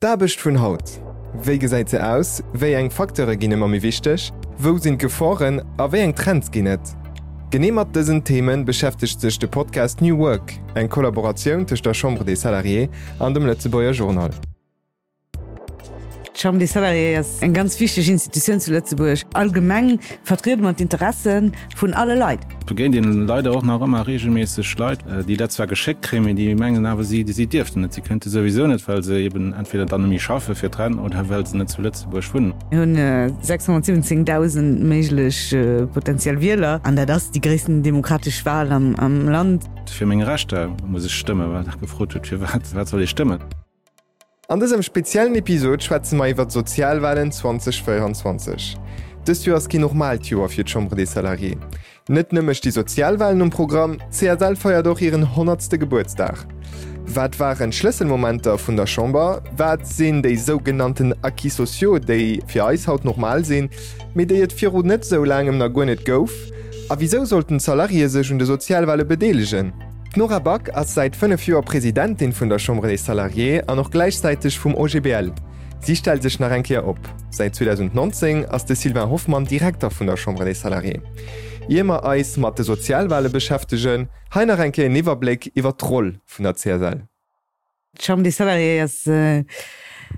D'Aarbecht vun haut, Wéi gesäit se aus, wéi eng Facteure ginn ëmmer méi wichteg, wou sinn d'Geforen a wéi eng Trends ginn et? Genee mat dësen Theme beschäftegt sech de Podcast New Work, eng Kollaboratioun tëscht der Chambre des Salariés an dem Lëtzebuerger Journal. D'Chambre des Salariés ass eng ganz wichteg Institutioun zu Lëtzebuerg. Allgemeng vertriede mer d'Interesse vun alle Leit. Et begéint een leider och nach ëmmer regelméisseg Leit, déi dat zwar geschéckt kréien, mee déi mengen awer, si si dierften net, si kënnte souwisou net, well se eben entweder dann net méi schaffe fir d'Rent oder well se net zu Lëtzebuerg wunnen. Mir hunn 617.000 méiglech potentiell Wieler an dat ass déi gréissten demokratesch Wal am Land. Fir meng Rechter muss ech stëmmen, well Der gefrot hutt, firwat wat soll ee stëmmen. An dësem speziellen Episod schwätze mer iwwer d'Sozialwalen 2024. Dëst Joer ass keen normaalt Joer fir d'Chambre des Salariés. Net nëmme sti Sozialwalen um Programm, d'CSL feiert och hiren honnertste Gebuertsdag. Wat waren d'Schlësselmomenter vun der Chamber? Wat sinn déi sougenannten Acquis sociaux, déi fir eis haut normal sinn, mee déi et viru net esou laangem nach guer net gouf? A wisou sollten d'Salariéë sech un de Sozialwale bedeelegen? D'Nora Back ass säit 5 Joer Presidentin vun der Chambre des Salariés an och gläichzäiteg vum OGBL. Si stellt sech nach eng Kéier op. Säit 2019 ass de Sylvain Hoffmann Direkter vun der Chambre des Salariés. Ier mer eis mat de Sozialwale beschäftegen, hei nach eng Kéier en Iwwerbléck iwwer d'Roll vun der CSL. D'Chambre des Salariés ass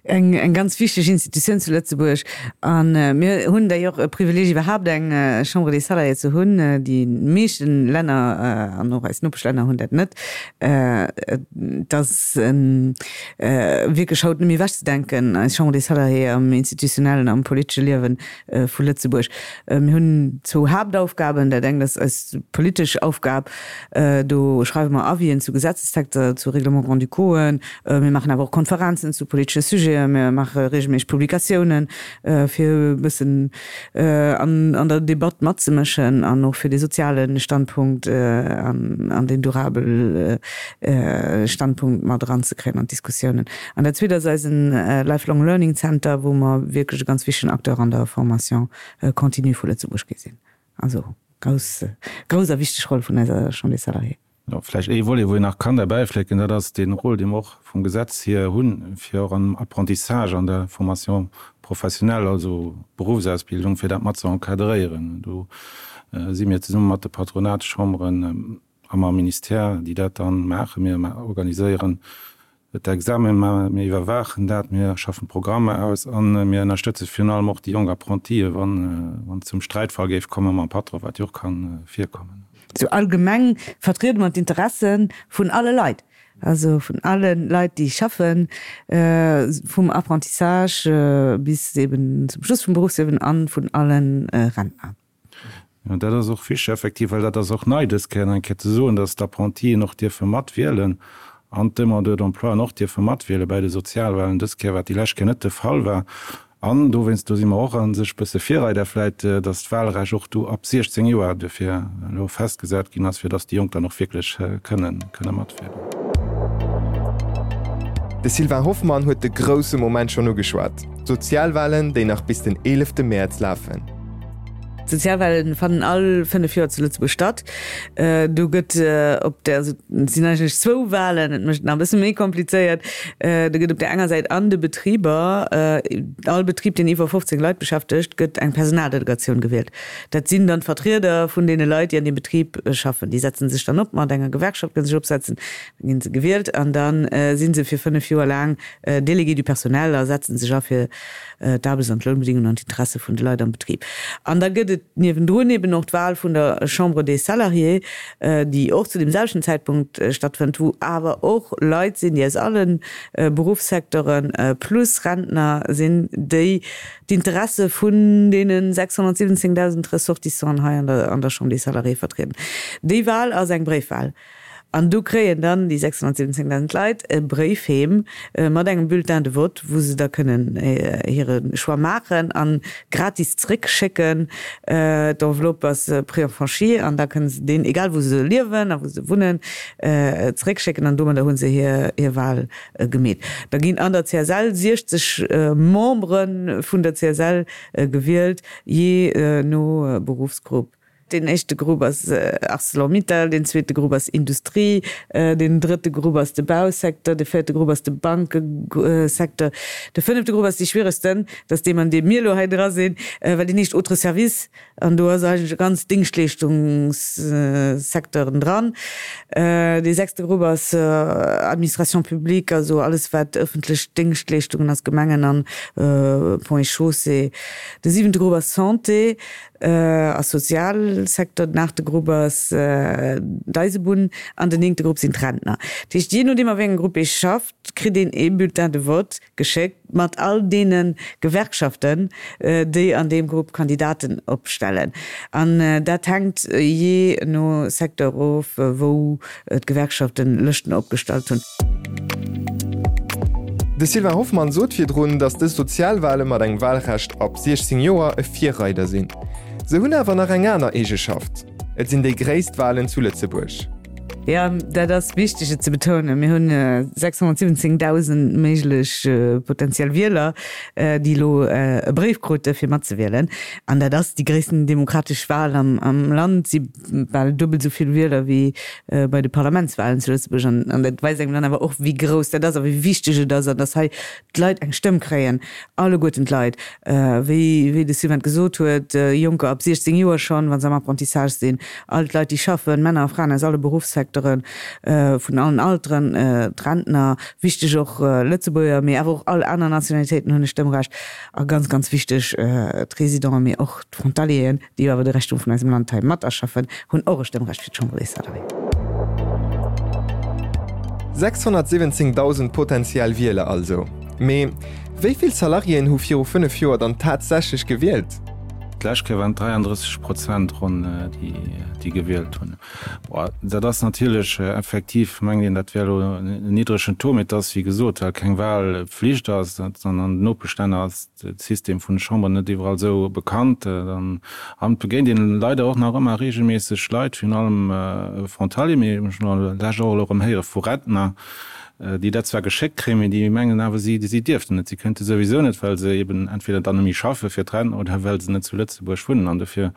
eng ganz wichteg Institutioun zu Lëtzebuerg a mir hunn d'ailleurs e Privileeg iwwerhaapt eng Chambre des Salariés ze hunn. Déi meeschte Länner an och eis Nopeschlänner hunn dat net. Et ass wierklech haut net méi ewechzedenken, eis Chambre des Salariés am institutionellen, am politesche Liewe vu Lëtzebuerg. Mir hunn zwou Haaptaufgaben. Dat engt ass eis politesch Aufgab, Do schreiwe mer Avisen zu Gesetzestexter, zu Règlements grand-ducauxen. Mir maachen awer och Konferenzen zu politesche Sujeten. Mir maache reegelméisseg Publikatiounen, fir e bëssen an der Debatt matzemëschen an och fir de soziale Standpunkt an den durabel Standpunkt mat eranzekréien an d'Diskussiounen. An dat Zweet ass eisen Lifelong Learning Center, wou mer wierklech e ganz wichtegen Acteur an der Formation continue vu Lëtzebuerg gi sinn. Also grouss, grouss a wichteg Roll vun eiser Chambre des Salariés. Jo, vläicht ee Volet, wou een nach kann derbäiflécken, dat ass dee Rôle, dee mer och vum Gesetz hier hunn, fir och am Apprentissage, an der Formation professionnelle, also Berufsausbildung, fir dat mat ze encadréieren. Do si mir zesumme mat de Patronatschamberen a mam Ministère, déi dat dann maachen. Mir organiséieren d'Examen, mir iwwerwaachen dat, mir schaffen d'Programmer aus a mir ënnerstëtze virun allem och déi jonk Apprentie, wann et zum Sträitfall géif komme mam Patron, wat jo och ka virkommen. Sou allgemeng vertriede mer d'Interesse vun alle Leit, also vun alle Leit, déi schaffen, vum Apprentissage bis eben zum Schluss vum Berufsliewen a vun alle Rentner. Jo, dat ass och wichteg, effektiv, well dat ass och nei dës Kéier nach eng Kéier ze soen, dass d'Apprentien och dierfe matwielen an d'Demandeurs d'emploien och dierfe matwiele bäi de Sozialwahlen dës Kéier, wat déi lescht Kéier net de Fall war. An dowéinst, do si mer och a sech e bësse Virreider vläicht, dass d'Wahlrecht och do ab 16 Joer duerfir elo festgesat ginn ass, fir dass déi Jonk dann och wierklech kënnen kënne matwielen. De Sylvain Hoffmann huet de grousse Moment schonn ugeschwat, d'Sozialwahlen, déi nach bis den 11 Mäerz lafen. D'Sozialwahlen fannen all 5 Joer zu Lëtzebuerg statt. Do gëtt op der, also et sinn eigentlech zwou Wahlen, et mécht et nach e bësse méi komplizéiert. Do gëtt op der enger Säit an de Betriber, all Betrib deen iwwer 15 Leit beschäftegt, gëtt eng Personaldelegatioun gewielt. Dat sinn dann d'Vertrieder vun deene Leit, déi an deem Betrib schaffen. Déi setzen sech dann op mat enger Gewerkschaft, kënne sech opsetzen, da ginn se gewielt an da si se fir 5 Joer laang Délégués du personnel a setzen sech a fir d'Aarbechts an d'Lounbedingungen an d'Interesse vun de Leit am Betrib. An da gëtt et niewendrun eben och d'Wahl vun der Chambre des Salariés, déi och zu deem selwechten Zäitpunkt stattfënnt, wou awer och Leit sinn, déi aus alle Beruffssecteuren plus Rentner sinn, déi d'Interesse vun deene 617.000 Ressortissanten hei an der Chambre des Salariés vertrieden. Déi Wahl ass eng Bréifwahl. An do kréien dann déi 617.000 Leit e Bréif heem mat engem Bulletin de vote, wou se da kënnen hire Choix maachen a gratis zréckschécken. D'Enveloppe ass préenfranchie an da kënne se deen, egal wou se liewen a wou se wunnen, zréckschécken an domadder hu se hir Wal gemeet. Da ginn an der CSL 60 Membere vun der CSL gewielt, jee no Beruffsgrupp. Deen éischte Grupp ass Arcelor-Mittal, deen zweete Grupp ass Industrie, deen drëtte Grupp ass de Bausecteur, de véierte Grupp ass de Bankesecteur, de fënnefte Grupp ass dee schwieregsten, dat ass deem an deem mir elo hei dra sinn, well deen heescht Autres services. An do ass eigentlech e ganz Dingschtleeschtungssecteuren dran. Dee sechste Grupp ass Administration publique, also alles wat ëffentlech Déngschtleeschtungen ass, Gemengen an Ponts et Chaussées. De siwente Grupp ass Santé a Sozialsecteur. Den aachte Grupp ass d'Eisebunn an den néngte Grupp sinn d'Rentner. Dat heescht, jee nodeem a wéi engem Grupp ee schafft, kritt een ee Bulletin de vote geschéckt mat all deene Gewerkschaften, déi an deem Grupp Kandidaten opstellen. An dat hänkt jee no Secteur of, wou d'Gewerkschaften Lëschten opgestallt hunn. De Sylvain Hoffmann sot virdrun, datt dës Sozialwale mat engem Walrecht ab 16 Joer e Virreider sinn. Se hunn awer nach eng aner Eegeschaft, Et sinn déi gréisst Walen zu Lëtzebuerg. Jo, dat ass wichteg et ze betounen. Mir hunn 617.000 méiglech potentiell Wieler, déi elo e Bréif krute fir matzewielen. An dat ass déi gréissten demokratesch Wal am Land. Et si bal duebel esou vill Wieler wéi bei de Parlamentswalen zu Lëtzebuerg. An dat weist engem dann awer och, wéi grouss dat ass a wéi wichteg et ass an datt hei d'Leit eng Stëmm kréien, alleguerten d'Leit, wéi wéi de Sylvain et gesot huet, Jonker ab 16 Joer schonn, wa se am Apprentissage sinn, all d'Leit, déi schaffen, Männer a Fraen aus alle Beruffssecteuren, vun allen Alteren, d'Rentner, wichteg och Lëtzebuerger, mee awer och all aner Nationalitéiten hunn e Stëmmrecht a ganz, ganz wichteg d'Résidenten, mee och d'Frontalieren. déi jo awer de Rächtum vun eisem Land hei mat erschaffen, hunn och e Stëmmrecht fir d'Chambre des Salariés. 617.000 potentiell Wieler also. Mee wéi vill Salariéen hu viru 5 Joer dann tatsächlech gewielt? D'lescht Kéier waren et 33 Prozent ronn, déi gewielt hunn. Dat ass natierlech effektiv, mengt een, dat wär elo en niddregen Taux, mee et ass, wéi gesot, well keng Wahlpflicht ass, an an den Nopeschlänner ass de System vun de Chamberen net iwwerall esou bekannt. An et begéint een leider och nach ëmmer reegelméisseg Leit, virun allem Frontalier, mee ech hunn elo lech och elo erëm héiere vu Rentner, déi dat zwar geschéckt kréien, mee déi mengen awer, si si dierften net, si kënnte souwisou net, well se eben entweder dann net méi schaffe fir d'Rent oder well se net zu Lëtzebuerg wunnen. An dofir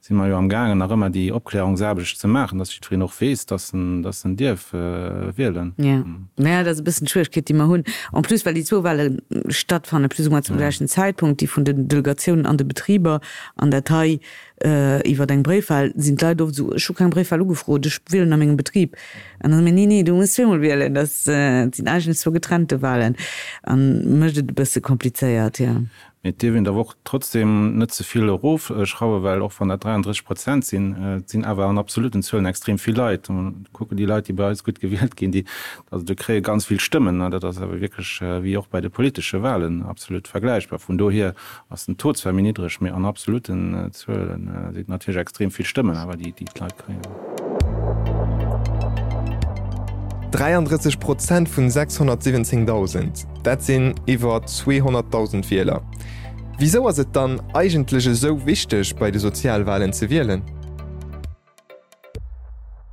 si mer jo am gaangen nach ëmmer déi Opklärungsaarbecht ze maachen, dass jiddwereen och weess, dass en, dass en dierf wielen. Jo, naja, dat ass e bëssen d'Schwieregkeet, déi mer hunn. En plus, well déi zwou Wahle stattfanne plus ou moins zum gläichen Zäitpunkt, déi vun den Delegatiounen an de Betriber an dat hei iwwer eng Bréifwahl, sinn d'Leit oft esou, ech hu keng Bréifwahl ugefrot, ech wielen a mengem Betrib. An da soe mir, nee, nee, du muss zweemol wielen, dat sinn eigentlech zwou getrennte Wahlen an mécht et e bësse komplizéiert, jo. Mee et dierf een awer och trotzdem net ze vill erofschrauwen, well och wann dat 33 Prozent sinn, et sinn awer an absoluten Zuelen extrem vill Leit. Kucken déi Leit, déi bei eis gutt gewielt ginn, déi, also déi kréie ganz vill Stëmmen. Dat ass awer wierklech wéi och bei de politesche Wahlen absolut vergläichbar. Vun dohier ass den Taux zwar méi niddreg, mee an absoluten Zuelen sinn et natierlech extrem vill Stëmmen awer, déi d'Leit kréien. 33 Prozent vun 617.000. Dat sinn iwwer 200.000 Wieler. Wisou ass et dann eigentlech esou wichteg bei de Sozialwalen ze wielen?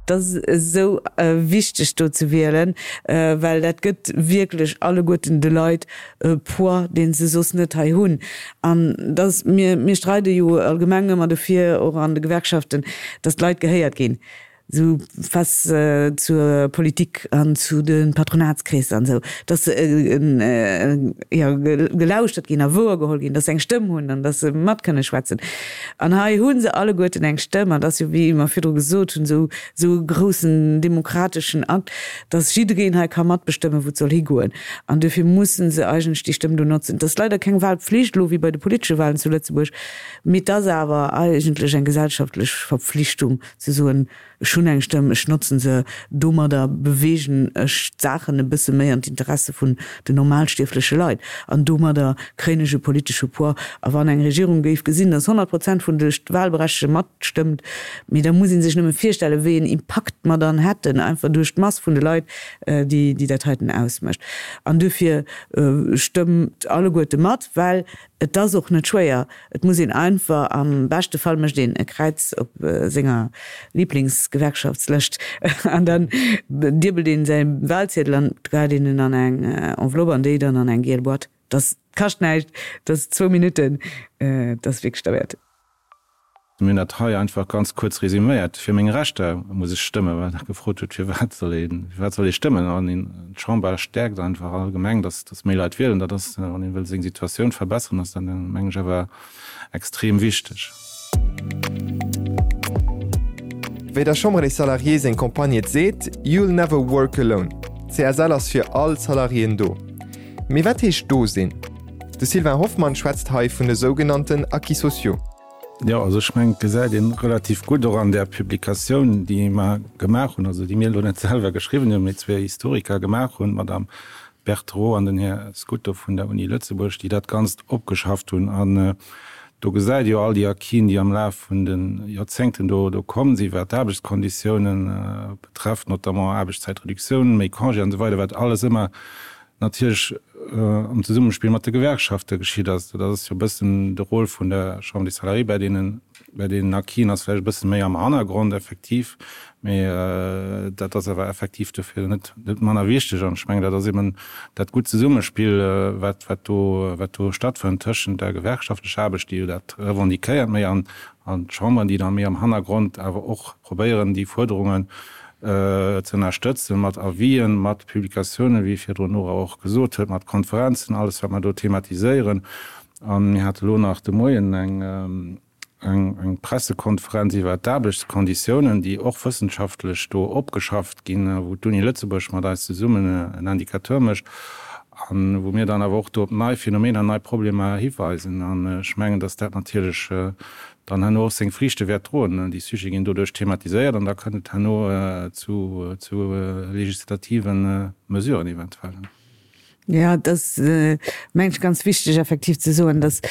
Et ass esou wichteg do ze wielen, well dat gëtt wierklech alleguerten de Leit e Poids, dee se soss net hei hunn. An dass mir, mir streide jo allgemeng ëmmer dofir, och an de Gewerkschaften, dass d'Leit gehéiert ginn. Esou face zur Politik an zu de Patronatskreesser an esou, dass se jo gelauschtert ginn a wouergeholl ginn, dass se eng Stëmm hunn an dass se mat kënne schwätzen. An hei hu se alleguerten eng Stëmm an dat ass jo, wéi mer virdru gesot hunn, esou esou e groussen demokrateschen Akt, dass jiddereen hei ka matbestëmmen, wou et soll higoen. An duerfir mussen se eigentlech déi Stëmm do notzen. Et ass leider keng Wahlpflicht elo wéi bei de politesche Wahlen zu Lëtzebuerg, mee et ass awer eigentlech eng gesellschaftlech Verpflichtung, Ze soen, ech hunn eng Stëmm, ech notzen se, domadder beweegen ech d'Saachen e bësse méi an d'Interesse vun den normalstierfleche Leit an domadder kréien ech e politesche Poids. A wann eng Regierung géif gesinn, datt 100 Prozent vun de Wahlberechtegte matstëmmt, mee da muss ee sech nëmme virstellen, wéi een Impakt mer dann hätten, einfach duerch d'Mass vun de Leit, déi dat heiten ausmécht. An duerfir stëmmt alleguerte mat, well Et ass och net schwéier, et muss een einfach, am beschte Fall mécht een e Kräiz op senger Liblingsgewerkschaftslëscht an dann diebelt een säi Wahlziedel an geheit een en an eng Enveloppe an déi dann an eng giel Boîte. Dat kascht näischt, dat ass zwou Minutten, dat ass wierklech derwäert. Mir hunn dat hei einfach ganz kuerz resüméiert. Fir meng Rechter muss ech stëmmen, well Der gefrot hutt, firwat soll ee, firwat soll ee stëmmen. An een, d'Chamber stäerkt einfach allgemeng, dass, dass méi Leit wielen. Dat ass, wann ee wëll seng Situatioun verbesseren, ass dat, meng ech, awer extrem wichteg. Wéi der Chambre des Salariés seng Campagne et seet, You'll never work alone. D'CSL ass fir all d'Salariéen do. Mee wat heescht do sinn? De Sylvain Hoffmann schwätzt hei vun de sougenannten Acquis sociaux. Jo, also ech mengen, et gesäit een relativ gutt och an där Publikatioun, déi mer gemaach hunn, also déi mir elo net selwer geschriwwen hunn, mee zwee Historiker gemaach hunn, d'Madame Berthereau an den Här Scuto vun der Uni Lëtzebuerg, déi dat Ganzt opgeschafft hunn. An do gesäit ee jo all déi Acquisen, déi am Laf vun de Joerzéngten do do komm sinn, wat d'Aarbechtskonditiounen betrefft, notamment Aarbechtszäitreduktioun, méi Congé an esou weider, wat alles ëmmer natierlech am Zesummespill mat de Gewerkschafte geschitt ass. Dat ass jo e bëssen de Rôle vun der Chambre des Salariés bei deenen, bei deenen Acquisen ass vläicht e bësse méi am Hannergrond effektiv, mee dat ass awer effektiv dofir net, net manner wichteg. An ech mengen, dat ass eben dat gutt Zesummespill, wat, wat do, wat do stattfënnt tëschent der gewerkschaftlecher Aarbecht, déi jo dat revendiquéiert méi, an, an d'Chamberen, déi da méi am Hannergrond awer och probéieren, déi Fuerderungen ze ënnerstëtzen, mat Avisen, mat Publikatiounen, wéi virdrun d'Nora och gesot huet, mat Konferenzen, alles wat mer do thematiséieren. A mir hate lo nach de Moien eng eng Pressekonferenz iwwert d'Aarbechtskonditiounen, déi och wëssenschaftlech do opgeschafft ginn, wou d'Uni Lëtzebuerg mat eis zesummen en Indicateur mécht a wou mir dann awer och do op nei Phänomener, nei Problemer hiweisen. An ech mengen, dass dat natierlech dann herno och seng Friichte wäert droen. Déi Sujete ginn doduerch thematiséiert an da kënnt et herno zu legislative Mesuren eventuell. Jo, et ass, mengen ech, ganz wichteg effektiv ze soen, datt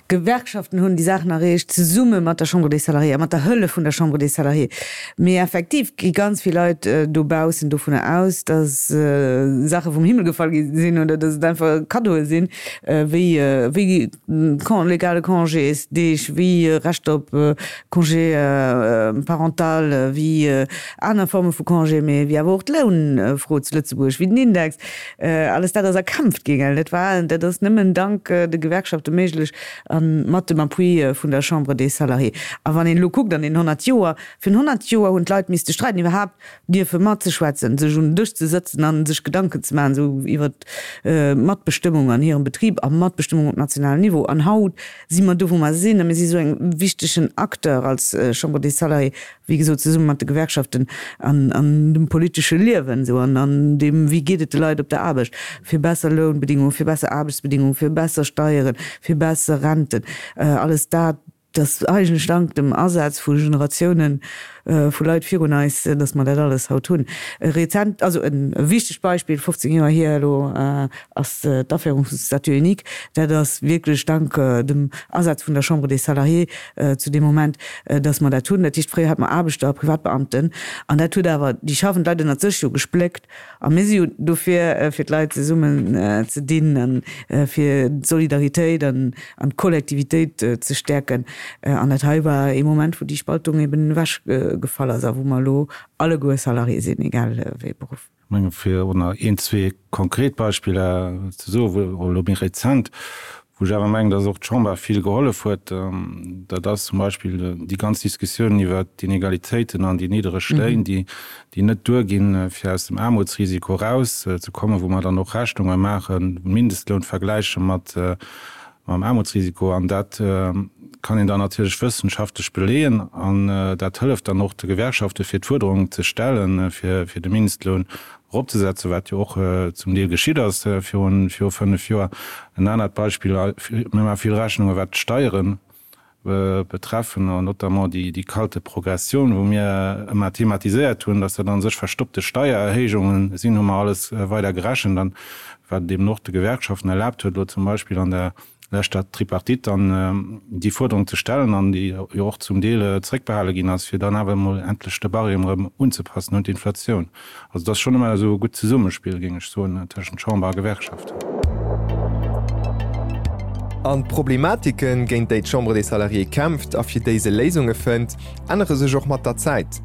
d'Gewerkschaften hunn déi Saachen erreecht, zesumme mat der Chambre des Salariés a mat der Hëllef vun der Chambre des Salariés. Mee effektiv gi ganz vill Leit dobaussen dovunner aus, datt Saache vum Himmel gefall gi sinn oder datt et einfach Kaddoe sinn, wéi wéi legale Congésdeeg, wéi Rechter op Congé parental, wéi aner Forme vu Congé, mee wéi awer och d'Lounfro zu Lëtzebuerg, wéi den Index, alles dat ass erkämpft ginn. Dat war, dat ass nëmmen dank de Gewerkschafte méiglech a mat dem Appui vun der Chambre des Salariés. A wann een elo kuckt an den 100 Joer, virun 100 Joer hunn d'Leit misste streiden iwwerhaapt dierfe matzeschwätzen, sech un den Dësch ze sëtzen a sech Gedanken ze maachen esou iwwer d'Matbestëmmung an hirem Betrib a Matbestëmmung op nationalem Niveau. An haut si mer do, wou mer sinn, a mir si esou eng wichtegen Acteur als Chambre des Salariés, wéi gesot zesumme mat de Gewerkschaften an an dem politesche Liewen esou an an deem, wéi geet et de Leit op der Aarbecht, fir besser Lounbedingungen, fir besser Aarbechtsbedingungen, fir besser Steieren, fir besser Renten, alles dat. Dass eigentlech dank dem Asaz vu Generatiounen vu Leit virun eis, dass mer dat alles haut hunn. E rezent, also e wichtegt Beispill, 15 Joer hier elo, ass d'Aféierung vum Statut unique. Dat ass wierklech dank dem Asaz vun der Chambre des Salariés zu deem Moment, dass mer dat hunn. Dat heescht, fréier hate mer Aarbechter a Privatbeamten an dat huet awer déi schaffend Leit ënnert sech jo gespléckt. A mir si jo dofir, fir d'Leit zesummen ze dinn a fir d'Solidaritéit an d'Kollektivitéit ze stäerken. An dat hei war ee Moment, wou déi Spaltung eben ewech gefall ass a wou mer elo alleguer Salarié sinn, egal wéi ee Beruff. Ech menge fir och nach een, zwee konkret Beispiller ze soen, wou elo méi rezent, Wou ech awer mengen, dass och d'Chamber vill gehollef huet, dat ass zum Beispill déi ganz Diskussioun iwwert d'Inegalitéiten an déi niddereg Léin, déi net duerginn, fir aus dem Aarmutsrisiko erauszekommen, wou mer dann och Rechnunge maachen, Mindestloun vergläiche mat mam Aarmutsrisiko. An dat kann een dann natierlech wëssenschaftlech beleeën an dat hëlleft dann och de Gewerkschaften, fir d'Fuerderung ze stellen, fir de Mindestloun eropzesetzen, wat jo och zum Deel geschitt ass virun viru 5 Joer. En anert Beispill, mir maache vill Rechnunge wat d'Steiere betreffen, an notamment déi déi kalte Progressioun, wou mir ëmmer thematiséiert hunn, datt dat a sech verstoppte Steiererhéijunge sinn, hu mer alles weider gerechent an wat et eben och de Gewerkschaften erlaabt huet, elo zum Beispill an der leschter Tripartite dann déi Fuerderung ze stellen an déi jo och zum Deel zréckbehale ginn ass, fir dann awer emol endlech de Barème erëm unzepassen un d'Inflatioun. Also et ass schonn ëmmer esou e gutt Zesummespill, géing ech soen, tëschent Chamber a Gewerkschaften. An d'Problematiken, géint déi d'Chambre des Salariés kämpft a fir déi se Léisunge fënnt, ännere sech och mat der Zäit.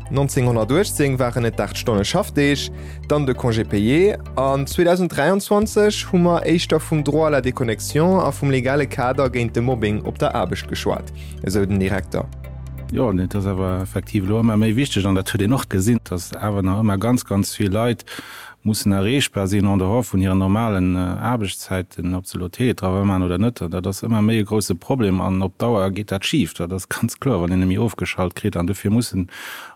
1918 waren et d'8 Stonne Schaffdeeg, dann de Congé payé an 2023 hu mer éischter vum Droit à la déconnexion a vum legale Kader géint de Mobbing op der Aarbecht geschwat, esou den Direkter. Jo, et ass awer effektiv elo ëmmer méi wichteg, an dat huet een och gesinn, datt awer nach ëmmer ganz, ganz vill Leit mussen erreechbar sinn en dehors vun hiren normalen Aarbechtszäiten, ob se elo Télétravail maachen oder net. An dat ass ëmmer méi e grouse Problem an op Dauer geet dat schif, dat ass ganz kloer, wann een net méi ofgeschalt kritt. An dofir mussen,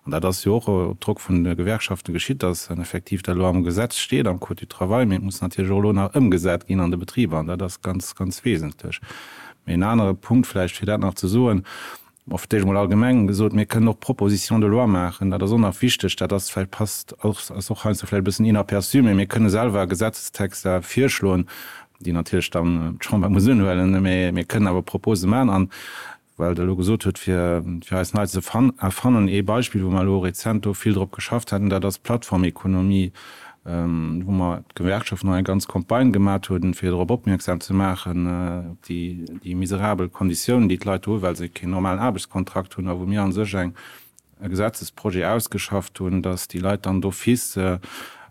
an dat ass jo och op Drock vun de Gewerkschaften geschitt, dass dann effektiv dat elo am Gesetz steet, am Code du travail, mee et muss natierlech och elo nach ëmgesat ginn an de Betriber an dat ass ganz, ganz wesentlech. Mee en anere Punkt vläicht, fir dat nach ze soen, Bon, fir d'éischt emol allgemeng gesot, mir kënnen och Propositions de loi maachen. Dat ass och nach wichteg. Dat ass vläicht, passt och, ass och heiansdo vläicht e bëssen inaperçu, mee mir kënne selwer Gesetzestexter virschloen, déi natierlech dann d'Chamber muss unhuelen, mee mir kënnen awer Propose maachen. An well Der elo gesot hutt, fir, fir eis nei ze erfannen, ee Beispill, wou mer elo rezent do vill drop geschafft haten, dat ass d'Plattformekonomie. wou mer d'Gewerkschaften och eng ganz Campagne gemat hunn, fir drop opmierksam ze maachen, op déi, déi miserabel Konditiounen, déi d'Leit do hunn, well se keen normalen Aarbechtskontrakt hunn, a wou mir a sech eng, e Gesetzesprojet ausgeschafft hunn, dass déi Leit dann d'office,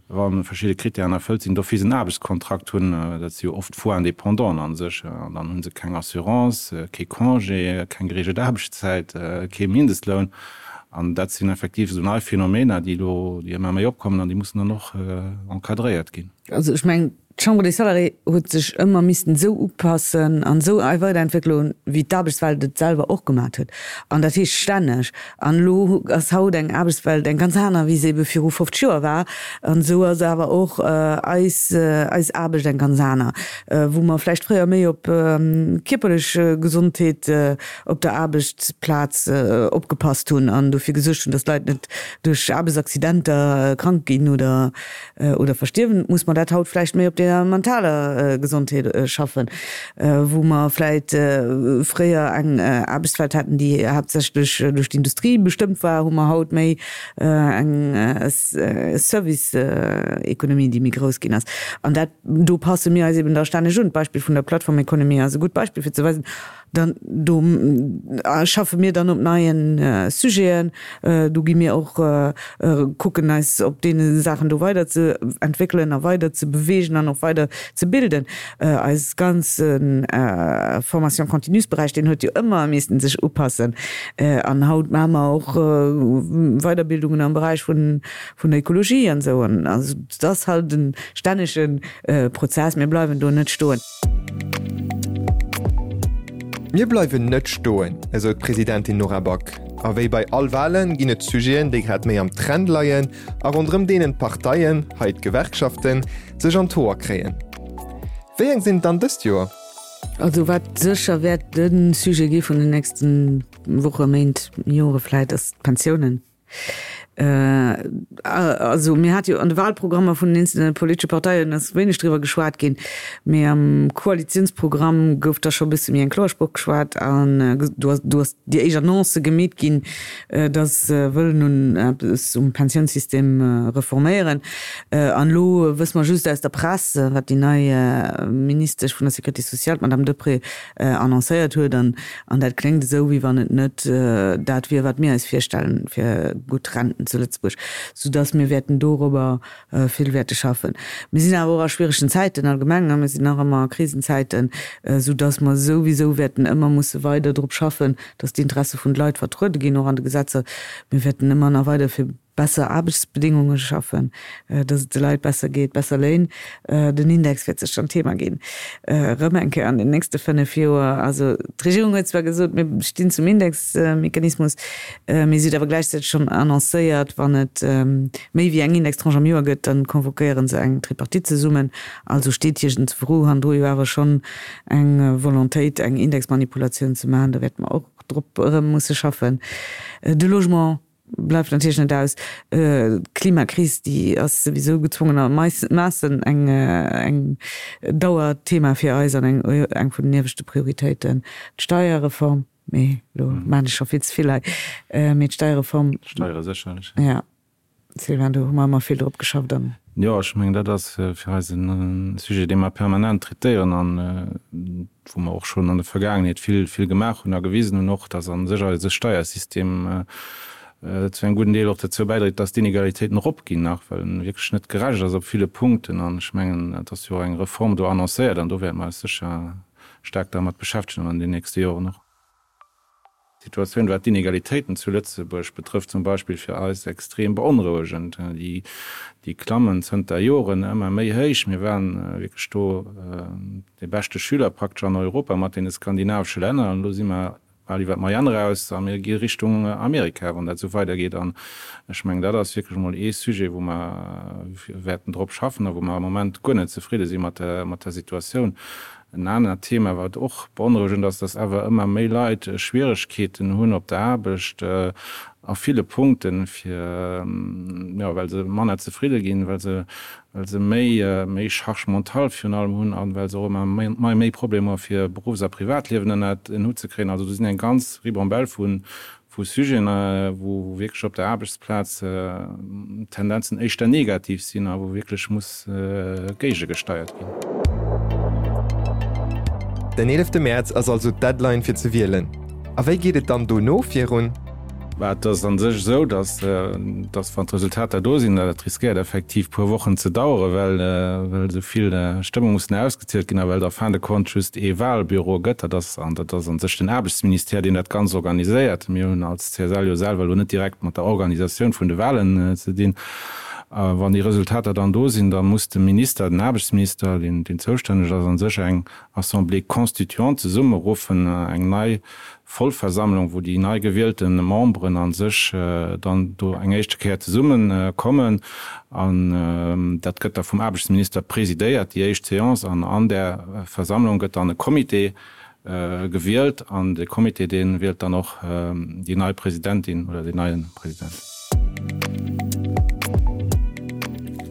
wa verschidde Kritären erfëllt sinn, d'office en Aarbechtskontrakt hunn. Dat si jo oft faux Indépendanten a sech. An dann hu se keng Assurance, kee Congé, keng gereegelt Aarbechtszäit, kee Mindestloun. An dat sinn effektiv esou nei Phänomener, déi elo, déi ëmmer méi opkommen an déi mussen dann och encadréiert ginn. Also ech mengen, d'Chambre des Salariés huet sech ëmmer missten esou upassen an esou weiderentwéckelen, wéi d'Aarbechtswelt et selwer och gemat huet. An dat heescht stänneg. An elo ass haut eng Aarbechtswelt eng ganz aner, wéi se ebe viru 50 Joer war. An esou ass awer och eis, eis Aarbecht eng ganz aner, wou mer vläicht fréier méi op kierperlech Gesondheet op der Aarbechtsplaz opgepasst hunn an dofir gesuergt hunn, dass d'Leit net duerch Aarbechtsaccidenter krank ginn oder oder verstierwen, muss mer dat haut vläicht méi op der mentaler Gesondheet schaffen, wou mer vläicht fréier eng Aarbechtswelt haten, déi haaptsächlech duerch d'Industrie bestëmmt war, hu mer haut méi eng Service-Economie, déi méi grouss ginn ass. An dat, do passe mir eis eben da stänneg un. D'Beispill vun der Plattformeconomie ass e gutt Beispill fir ze weisen, Dann do schaffe mir dann op neie Sujeten. Do gi mir och kucken eis op deene Saachen do weider ze entwéckelen a weider ze beweegen an och weider ze bilden. Eis ganze Formation continue-Beräich, deen huet jo ëmmer missten sech upassen. An haut maache mer och Weiderbildungen am Beräich vun der Ekologie an esou. An also et ass halt e stännege Prozess. Mir bleiwen do net stoen. Mir bleiwen net stoen, esou d'Presidentin Nora Back. A wéi bei all Walen ginn et Sujeten, déi grad méi am Trend leien a ronderëm deenen d'Parteien, hei d'Gewerkschaften, sech an d'Hoer kréien. Wéi eng sinn et dann dëst Joer? Also wat sécher wäert de Sujet gi vun den nächste Woche, Méint, Jore vläit, ass d'Pensiounen. Also mir hate jo an de Wahlprogrammer vun den eenzelne politesche Parteien ass wéineg driwwer geschwat ginn, mee am Koalitiounsprogramm gouf da scho e bësse méi eng kloer Sproch geschwat an do ass do ass déi éischt Annonce gemeet ginn, datt se wëllen un eppes um Pensiounssystem reforméieren. An elo wësse mer just aus der Press, wat déi nei Ministesch vun der Sécurité sociale, d'Madame Deprez, annoncéiert huet. An An dat kléngt esou, wéi wann et net dat wier, wat mir eis virstellen fir gutt Renten zu Lëtzebuerg, soudass mir wäerten dorobber vill wäerte schaffen. Mir sinn awer och a schwieregen Zäiten allgemeng, mir sinn nach ëmmer a Krisenzäiten, soudass mer souwisou wäerten ëmmer musse weider drop schaffen, dass d'Interesse vun de Leit vertruede ginn, och an de Gesetzer. Mir wäerten ëmmer nach weider fir besser Aarbechtsbedéngunge schaffen, dass et de Leit besser geet, besser Léin. Den Index wäert sécher en Thema ginn, erëm eng Kéier an den nächste 5 Joer. Also d'Regierung huet zwar gesot, mir stinn zum Indexmechanismus, mee si huet awer gläichzäiteg schonn annoncéiert, wann et méi wéi eng Indextranche am Joer gëtt, da convoquéiere se eng Tripartite zesummen. Also steet iergendwou hannendru jo awer schonn eng Volontéit, eng Indexmanipulatioun ze maachen. Do wäerte mer och drop erëm musse schaffen. De Logement Bleift natierlech net aus. D'Klimakris, déi ass souwisou gezwongenermaassen eng eng Dauerthema fir eis an eng eng vun den ieweschte Prioritéiten. D'Steierreform, mee elo maachen ech scho vill ze vill hei, mee d'Steierreform. D'Steiere sécherlech. Jo, Sylvain, do hu mer ëmmer vill drop geschafft an. Jo, ech mengen, dat ass fir eis e Sujet, dee mer permanent traitéieren an wou mer och schonn an der Vergaangenheet vill, vill gemaach hunn a gewisen hunn och, dass a sech eise Steiersystem. zu engem gudden Deel och dozou bäidréit, dass d'Inegalitéiten eropginn nach, well en wierklech net gerecht ass op ville Punkten. An ech mengen, et ass jo och eng Reform do annoncéiert an do wäerte mer eis sécher staark dermat beschäftegen an den nächste Joren och. D'Situatioun, wat d'Inegalitéiten zu Lëtzebuerg betrëfft zum Beispill, fir eis extrem beonrouegend. Déi klammen zënter Joren ëmmer méi héich. Mir waren wierklech do dee beschte Schüler praktesch an Europa mat deene skandinavesche Länner an elo si mer bal iwwer d'Moyenne eraus a mir gi Richtung Amerika, wann dat esou weidergeet. An ech mengen, dat ass wierklech emol ee Sujet, wou mer wäerten drop schaffen a wou mer am Moment guer net zefridde si mat der Situatioun. En anert Thema, wat och beonrouegend ass, dass awer ëmmer méi Leit Schwieregkeeten hunn op der Aarbecht a ville Punkten, fir, jo, well se manner zefridde ginn, well se, well se méi, méi Charge mentale virun allem hunn a well se och ëmmer méi, méi Problemer hu fir Beruffs a Privatliewen ënnert en Hutt ze kréien. Also do sinn eng ganz Ribambelle vu vu Sujeten, wou wierklech op der Aarbechtsplaz d'Tendenzen éischter negativ sinn a wou wierklech muss géigegesteiert ginn. Den eelefte Mäerz ass also d'Deadline fir ze wielen. A wéi geet et dann dono virun? Bah, et ass a sech esou, datt, datt wann d'Resultater do sinn, dat riskéiert effektiv puer Wochen ze daueren, well, well esou vill Stëmme mussen ausgezielt ginn a well et en fin de compte just ee Wahlbüro gëtt. Dat ass, an dat ass a sech den Aarbechtsministère, deen dat Ganzt organiséiert. Mir hunn als CSL jo selwer elo net direkt mat der Organisatioun vun de Wahlen ze dinn. A wann déi Resultater dann do sinn, da muss de Minister, den Aarbechtsminister, deen, deen zoustänneg ass, a sech eng Assemblée constituante zesummeruffen, eng nei Vollversammlung, wou déi nei gewielte Memberen a sech dann do eng éischte Kéier zesumme kommen. An dat gëtt da vum Aarbechtsminister presidéiert, déi éischt Séance. An an där Versammlung gëtt dann e Comité gewielt. An de Comité, dee wielt dann och déi nei Presidentin oder deen neie President.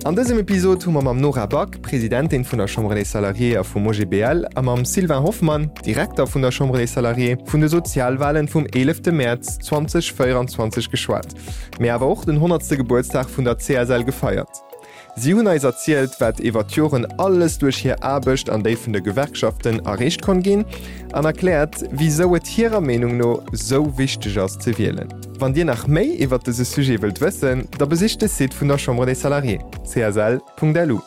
An dësem Episod hu mer mam Nora Back, Presidentin vun der Chambre des Salariés a vum OGBL, a mam Sylvain Hoffmann, Direkter vun der Chambre des Salariés, vun de Sozialwalen vum 11 Mäerz 2024 geschwat, mee awer och den honnertste Gebuertsdag vun der CSL gefeiert. Si hunn eis erzielt, wat iwwer d'Joren alles duerch hir Aarbecht an déi vun de Gewerkschaften erreecht konnt ginn an erkläert, wisou et hirer Meenung no sou wichteg ass ze wielen. Wann Dir nach méi iwwer dëse Sujet wëllt wëssen, da besicht de Site vun der Chambre des Salariés, csl.lu.